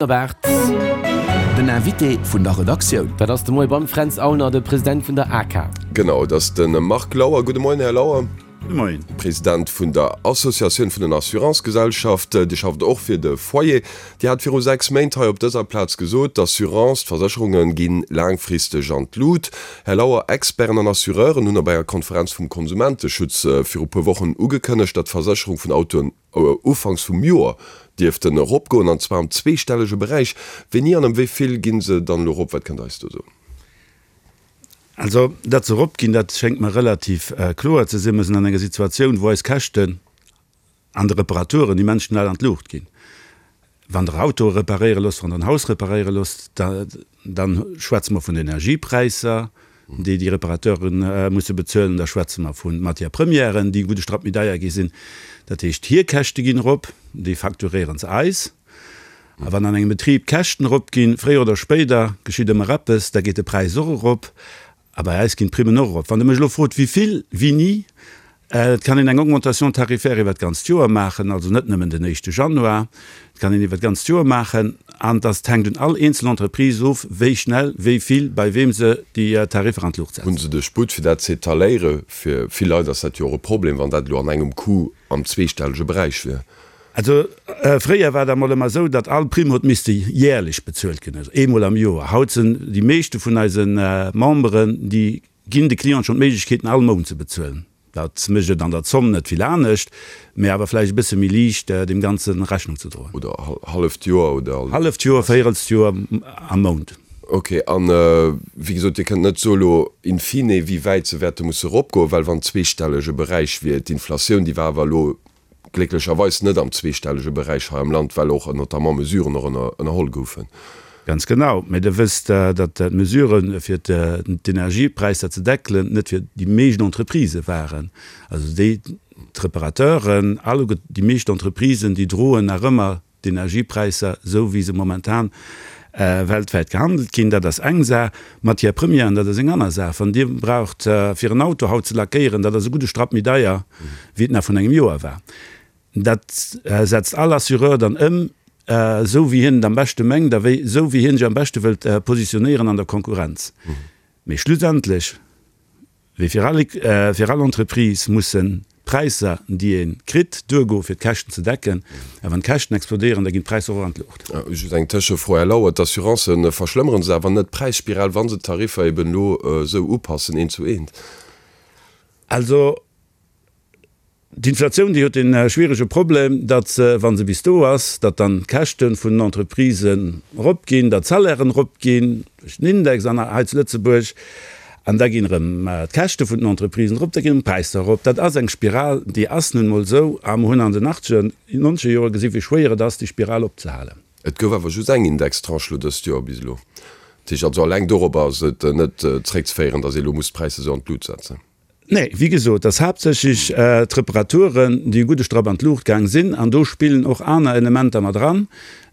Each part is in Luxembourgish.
Erwaart. Den Invité vun der Redaktioun. Dat ass de Moie beim Fränz Aulner, de President vun der ACA. Genau, et ass de Marc Lauer. Gudde Moien, Här Lauer. Gudde Moien. President vun der Associatioun vun den Assurancegesellschaften. Dir schafft och fir de Foyer. Dir hat viru 6 Méint hei op dëser Plaz gesot, d'Assurance, d'Versécherunge gi laangfristeg an d'Lut. Här Lauer, Experten an Assureuren hunn op enger Konferenz vum Konsumenteschutz viru puer Wochen ugekënnegt, datt d'Versécherung vun Autoen, Ufanks vum Joer dierften eropgoen, an zwar am zweestellege Beräich. Wéini an ëm wéi vill gi se dann elo erop? Wat kënnt Der eis do soen? Also, datt se eropginn, dat schéngt mer relativ kloer ze sinn. Mer sinn an enger Situatioun, wou eis Käschten an de Reparaturen immens schnell an d'Luucht ginn. Wann Der Autoe reparéiere loosst, wann Der en Haus reparéiere loosst, da schwätze mer vun Energiepräisser, déi déi Reparateure musse bezuelen. Da schwätze mer vu Matières premièren, déi e gudde Strapp méi deier gi sinn. Dat heescht, hir Käschte ginn erop, déi facturéiere se eis. A wann an engem Betrib d'Käschten eropginn, fréier oder spéider geschitt ëmmer eppes, da geet de Präis och erop. A bei eis ginn d'Primmen och erop. Wann Der mech elo frot, wéi vill, wéini, et kann een eng Augmentation tarifaire iwwer d'ganzt Joer maachen, also net nëmmen den éischte Januar, et kann een iwwer d'ganzt Joer maachen. An dass hänkt un all eenzel Entreprise of, wéi schnell, wéi vill, bei weem se déi Tariffer an d'Luucht setzen. Hu se de Sputt, fir dat z'étaléieren? Fir vill Leit ass dat jo och e Problem, wann dat elo an engem Coup am zweestellege Beräich wier. Also fréier war dat mol ëmmer esou, datt all Primm huet misste jährlech bezuelt ginn, also eemol am Joer. Haut sinn déi meeschte vun eise Memberen, déi ginn de Clienten schonn d'Méiglechkeeten all Mount ze bezuelen. Dat mécht et an der Zomm net vill anescht, mä awer vläicht e bësse méi liicht deem Ganze Rechnung ze droen. Oder halleft Joer oder? Halleft Joer, véierelst Joer am Mount. Ok, an wéi gesot, Dir kënnt net soe lo in fine, wéi wäit se wäerte musse eropgoen, well wann zweestellege Beräich wier, d'Inflatioun, déi war awer elo Glécklecherweis net am zweestellege Beräich hei am Land, well och notamment Mesuren och ënnerholl goufen. Ganz genau. Mä Der wësst, datt d'Mesuren, fir d'Energiepräisser ze deckelen, net fir déi meescht Entreprisë waren. Also déi, d'Reparateuren, alleguer déi meescht Entreprisen, déi droen nach ëmmer D'Energiepräisser, esou wéi se momentan weltwäit gehandelt ginn, dat ass eng Saach. Matières premièren, dat ass eng aner Saach. Wann Dir braucht fir en Auto haut ze lackéieren, dat ass e gudde Strapp méi deier, wéi et nach vrun engem Joer war. Dat setzt all Assureur dann ëm, esou wéi hien et am beschte mengt a wéi esou wéi hien sech am beschte wëllt positionéieren an der Konkurrenz. Mee schlussendlech Wéi fir all fir all Entreprise mussen d'Präisser, déi ee kritt, duergoe fir d'Käschten ze decken. A wann d'Käschten explodéieren, da ginn d'Präisser och an d'Luucht. Just eng Tëschefro, Här Lauer, D'Assurancen, verschlëmmere se awer net d'Präisspiral, wa se d'Tariffer eben elo esou upassen, eent zu eent? Also D'Inflatioun, déi huet dee schwierege Problem, datt se, wa se bis do ass, datt dann d'Käschte vun den Entreprisen eropginn, datt d'Salairen eropginn duerch den Index an hei zu Lëtzebuerg, an da ginn erëm d'Käschte vun den Entreprisen erop, da ginn erëm d'Präisser erop. Dat ass eng Spiral, déi ass nun emol esou, a mer hunn an den achtzeger, nonzeger Jore gesinn, wéi schwéier et ass, déi Spiral opzehalen. Et gouf awer just eng Indextranche elo dëst Joer bis elo. Dat heescht also, alleng dorobber ass et net zréckzeféieren, datt ee elo muss d'Präisser esou an d'Lut setzen. Nee, wéi gesot, et ass haaptsächlech d'Reparaturen, déi e gudde Strapp an d'Luucht gaang sinn. An do spillen och aner Elementer mat eran.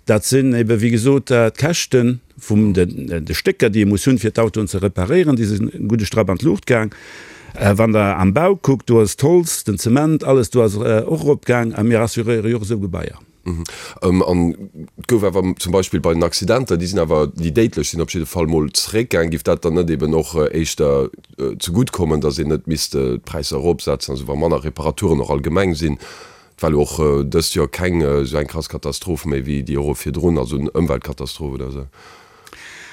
Dat sinn ebe wéi gesot d'Käschte vum de Stécker, déi ee muss hunn, fir d'Autoen ze reparéieren, déi sinn e gudde Strapp an d'Luucht gaang. Wann Der am Bau kuckt, do ass d'Holz, den Zement, alles do ass och eropgaang. A mir assuréiere jo och esou Gebaier. An et gouf awer zum Beispill bei den Accidenter, déi sinn awer, déi déidlech sinn op jidde Fall mol zeréckgaang. Giff dat dann net eben och éischter zegutt kommen, datt een net misst d'Präisser eropsetzen, also wa manner Reparaturen och allgemeng sinn? Et war elo och dëst Joer keng esou eng krass Katastroph méi wéi déi Jore virdrun, also en Ëmweltkatastroph oder esou.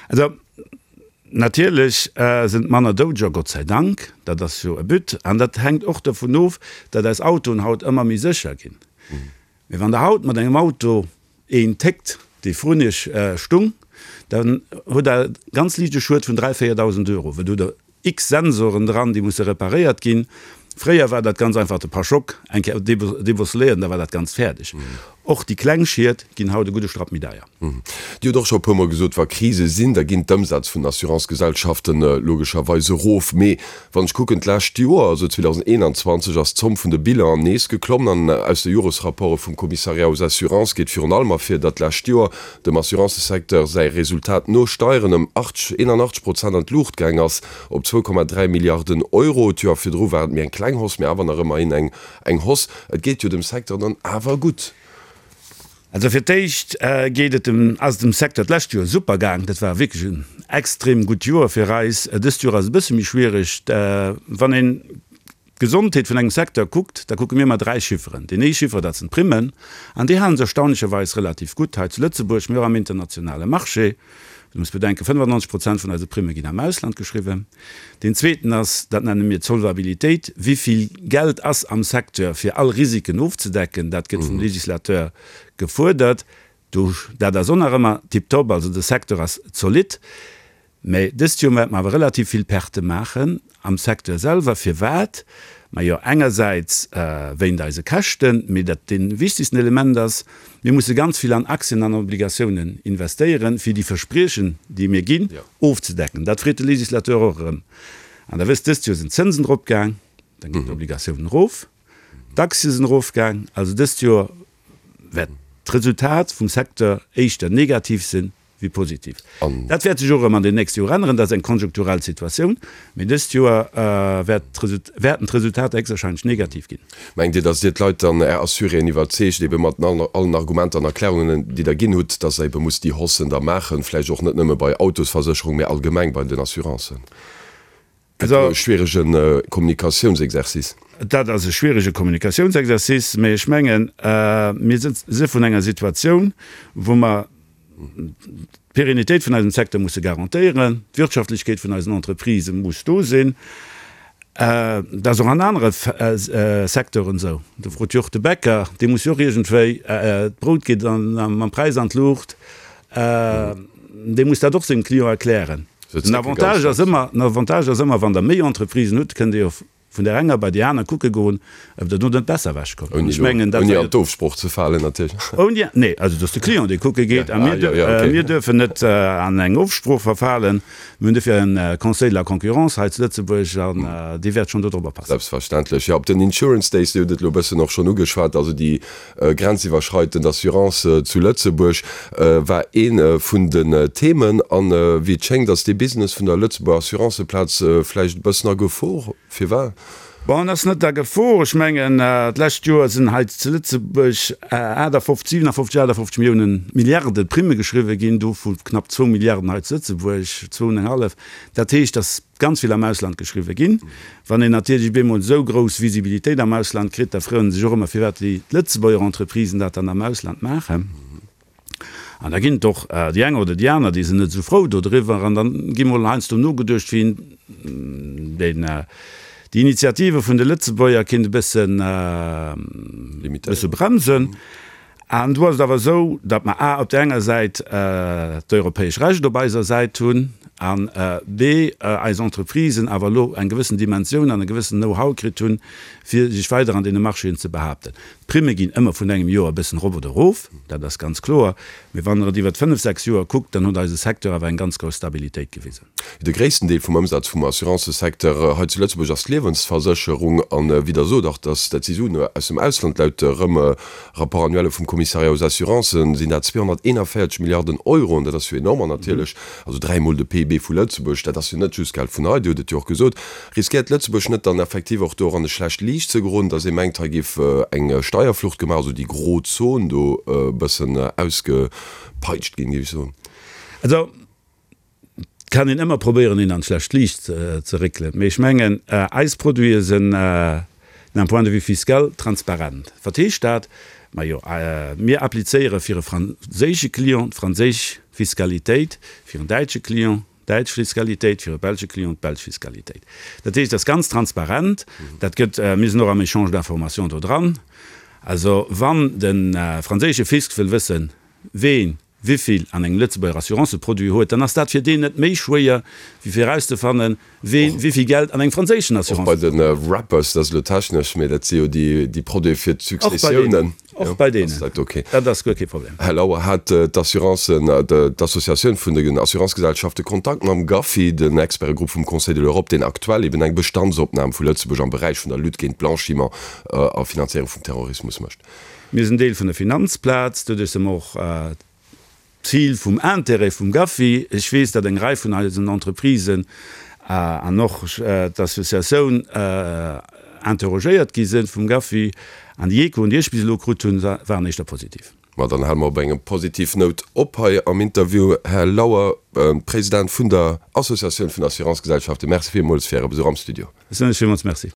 Also natierlech sinn et manner Doudeger, Gott sei Dank, dat ass jo e But. An dat hänkt och dovun of, datt eis Autoen haut ëmmer méi sécher ginn. Mee wann Der haut mat engem Auto een téckt, dee vrun Iech stung, dann hutt Der ganz liicht e Schued vun 3.000, 4.000 Euro, well do hutt Der x Sensoren dran, déi musse reparéiert ginn. Fréier war dat ganz einfach de Pachock eng Kéier débosseléiert an da war dat Ganzt fäerdeg. Och déi kleng Schied ginn haut e gudde Strapp méi deier. Dir hutt och scho e puermol gesot, wa Krise sinn, da ginn d'Ëmsätz vun den Assurancegesellschaften logescherweis erof. Mee wann ech kucken, d'lescht Joer, also 2021, ass d'Zomm vun de Bilanen nees geklommen. An aus de Joresrapporte vum Commissariat aux assurances geet virun allem ervir, datt d'lescht Joer dem Assurancesecteur säi Resultat no Steieren ëm 81 Prozent an d'Luucht gaang ass, op 2,3 Milliarden Euro. D'Joer virdru war et méi eng kleng Hausse, mee awer nach ëmmerhin eng Hausse. Et geet jo dem Secteur dann awer gutt. Also fir d'éischt geet et dem, ass et dem Secteur d'lescht Joer super gaang. Dat war wierklech en extrem gutt Joer fir eis. Dëst Joer ass e bësse méi schwiereg. Wann een d'Gesondheet vun engem Secteur kuckt, da kucke mir ëmmer 3 Chifferen. Deen ee Chiffer, dat sinn d'Primmen, an déi hale sech erstaunlecherweis relativ gutt hei zu Lëtzebuerg, mee och am internationale Marché. Du muss bedenken, 95 Prozent vun eise Primme ginn am Ausland geschriwwen. Deen zweeten ass, dat nenne mir d'Solvabilitéit, Wéi vill Geld ass am Secteur, fir all Risiken ofzedecken? Dat gëtt vum Législateur gefuerdert. Do, dat ass och nach ëmmer tiptop, also de Secteur ass zolidd. Mä dëst Joer wäerte mer awer relativ vill Pertë maachen am Secteur selwer. Firwat? Majo, engersäits wéint eise Käschten, mee dat dee wichtegsten Element ass, Mir musse ganz vill an Aktien an Obligatiounen investéieren, fir déi Verspriechen, déi mir ginn, ofzedecken. Dat freet de Législateur och erëm. An Der wësst, dëst Joer sinn d'Zënsen eropgaang, dann ginn d'Obligatiounen erof, d'Aktie sinn erofgaang. Also dëst Joer wäert d'Resultat vum Secteur éischter negativ sinn wéi positiv. Dat wäert sech och erëm an den nächste Joer änneren, dat ass eng konjunkturell Situatioun, mee dëst Joer wäerten d'Resultater héchstwahrscheinlech negativ ginn. Mengt Dir, datt Dir d'Leit dann, Är Assuréen, iwwerzeegt, ebe mat allen Argumenter an Erklärungen, déi Der ginn hutt, datt Der ebe musst déi Haussen da maachen, vläicht och net nëmme bei Autosversécherung, mä allgemeng bei den Assurancen? Gëtt e schwierege Kommunikatiounsexercice. Dat ass e schwierege Kommunikatiounsexercice, mä ech mengen, mir si vun enger Situatioun, wou mer d'Pérennitéit vun eisem Secteur musse garantéieren, d'Wirtschaftlechkeet vun eisen Entreprisë muss do sinn. Dat ass och an anere Secteuren esou. Do frot jo och de Bäcker, dee muss jo och iergendwéi, d'Brout geet mam Präis an d'Luucht, dee muss dat och sengem Client erklären. Den Avantage ass ëmmer, den Avantage ass ëmmer, wann Der méi Entreprisen hutt, kënnt Dir jo vun där enger bei déi aner kucke goen, ob Der do net besser ewechkommt. An ech mengen, dat war jo. Ouni an d'Ofsproch ze falen natierlech. Ouni, nee, also et ass de Client, dee kucke geet. A mir, mir duerfen net an eng Ofsprooch verfalen. Mir hunn dofir e Conseil de la concurrence hei zu Lëtzebuerg an dee wäert schonn dodrop oppassen. Selbstverständlech, jo. Op den Insurance Days, Dir hutt et elo e bëssen och schonn ugeschwat, also déi Grenziwwerschreitend Assurance zu Lëtzebuerg war ee vun den Themen. An wéi et schéngt, ass dee Business vun der Lëtzebuerger Assuranceplaz vläicht e bëssen a Gefor. Firwat? Bon, en ass net a Gefor. Ech mengen, d'lescht Joer sinn hei zu Lëtzebuerg 58, 57, 58 Milliounen, Milliarde Primme geschriwwe ginn, dovu knapp zwou Milliarden hei zu Lëtzebuerg, zwou an eng hallef. Dat heescht, dass ganz vill am Ausland geschriwwe ginn. Wann een natierlech op eemol esou grouss Visibilitéit am Ausland kritt, da froen se sech och ëmmer, firwat déi Lëtzebuerger Entreprisen dat dann am Ausland maachen. An da ginn et och déi eng oder déi aner, déi sinn net esou frou dodriwwer. An da gi mol heiansdo nogeduecht, wéi een deen, déi Initiative vun de Lëtzebuerger kéint e bëssen, bësse bremsen. An do ass et awer esou, datt mer a op där enger Säit d'europäesch Recht op eiser Säit hunn an b eis Entreprisen awer elo eng gewëssen Dimensioun an e gewëssen Know-how kritt hunn, fir sech weider an deene Marchéen ze behaapten. D'Primme ginn ëmmer vun engem Joer e bëssen erop oder erof, dat ass ganz kloer, mee wann Der et iwwert fënnf, sechs Joer kuckt, dann huet eise Secteur awer eng ganz grouss Stabilitéit gewisen. De gréissten Deel vum Ëmsaz vum Assurancësecteur hei zu Lëtzebuerg ass d'Liewensversécherung. An wéi Der sot, och dass dat si Suen aus dem Ausland, laut rëm Rapport annuel vum Commissariat aux assurances sinn dat 241 Milliarden Euro. An dat ass jo enorm. An natierlech, also dräimol de PIB vu Lëtzebuerg, dat ass jo net just Geld vun hei, Dir hutt et jo och gesot. Riskéiert Lëtzebuerg net dann effektiv och do och an e schlecht Liicht ze geroden, dass ee mengt, hei géif eng Steierflucht gemaach, also déi gro Zon do e bëssen ausgepeitscht ginn, géif ech soen? Also, Et kann een ëmmer probéieren, een an d'schlecht Liicht ze réckelen, mee ech mengen, eis Produite sinn d'un point de vue fiscal transparent. Wat heescht dat? Majo, mir applizéiere fir e franséische Client d'franséisch Fiskalitéit, fir en däitsche Client d'däitsch Fiskalitéit, fir e belsche Client d'belsch Fiskalitéit. Dat heescht, et ass ganz transparent. Dat gëtt, mir sinn och am Échange d'informations do dran. Also wann de franséische Fisc wëll wëssen, ween wivill an engem Lëtzebuerger Assuranceproduit huet, dann ass dat fir deen net méi schwéier, wéi fir erauszefannen, ween wivill Geld an engem franséischen Och bei de Assuranceproduit. Wrappers, dat ass elo technesch, mä dat si jo déi Produite fir d'Successiounen. Och bei deenen. Dat ass guer kee Problem. Här Lauer, hat d'Assurancen, d'Associatioun vun den Assurancegesellschafte Kontakt mam GAFI, den Expertegrupp vum Conseil de l'Europe, deen aktuell eben eng Bestandsopnam vu Lëtzebuerg am Beräich vun der Lutte géint Blanchiment a Finanzéierung vum Terrorismus mécht? Mir sinn Deel vun der Finanzplaz, doduerch si mer och Zil vum Intérêt vum GAFI. Ech weess, datt eng Rei vun eisen Entreprisen an och d'Associatioun interrogéiert gi sinn vum GAFI, an déi Echoen, déi ech bis elo krut hunn, waren éischter positiv. Ma dann hale mer op engem positiv Nout op hei am Interview. Här Lauer, President vun der Associatioun vun Assurancegesellschaften, Merci villmools fir Äre Besuch am Studio. Ech soen lech villmools Merci.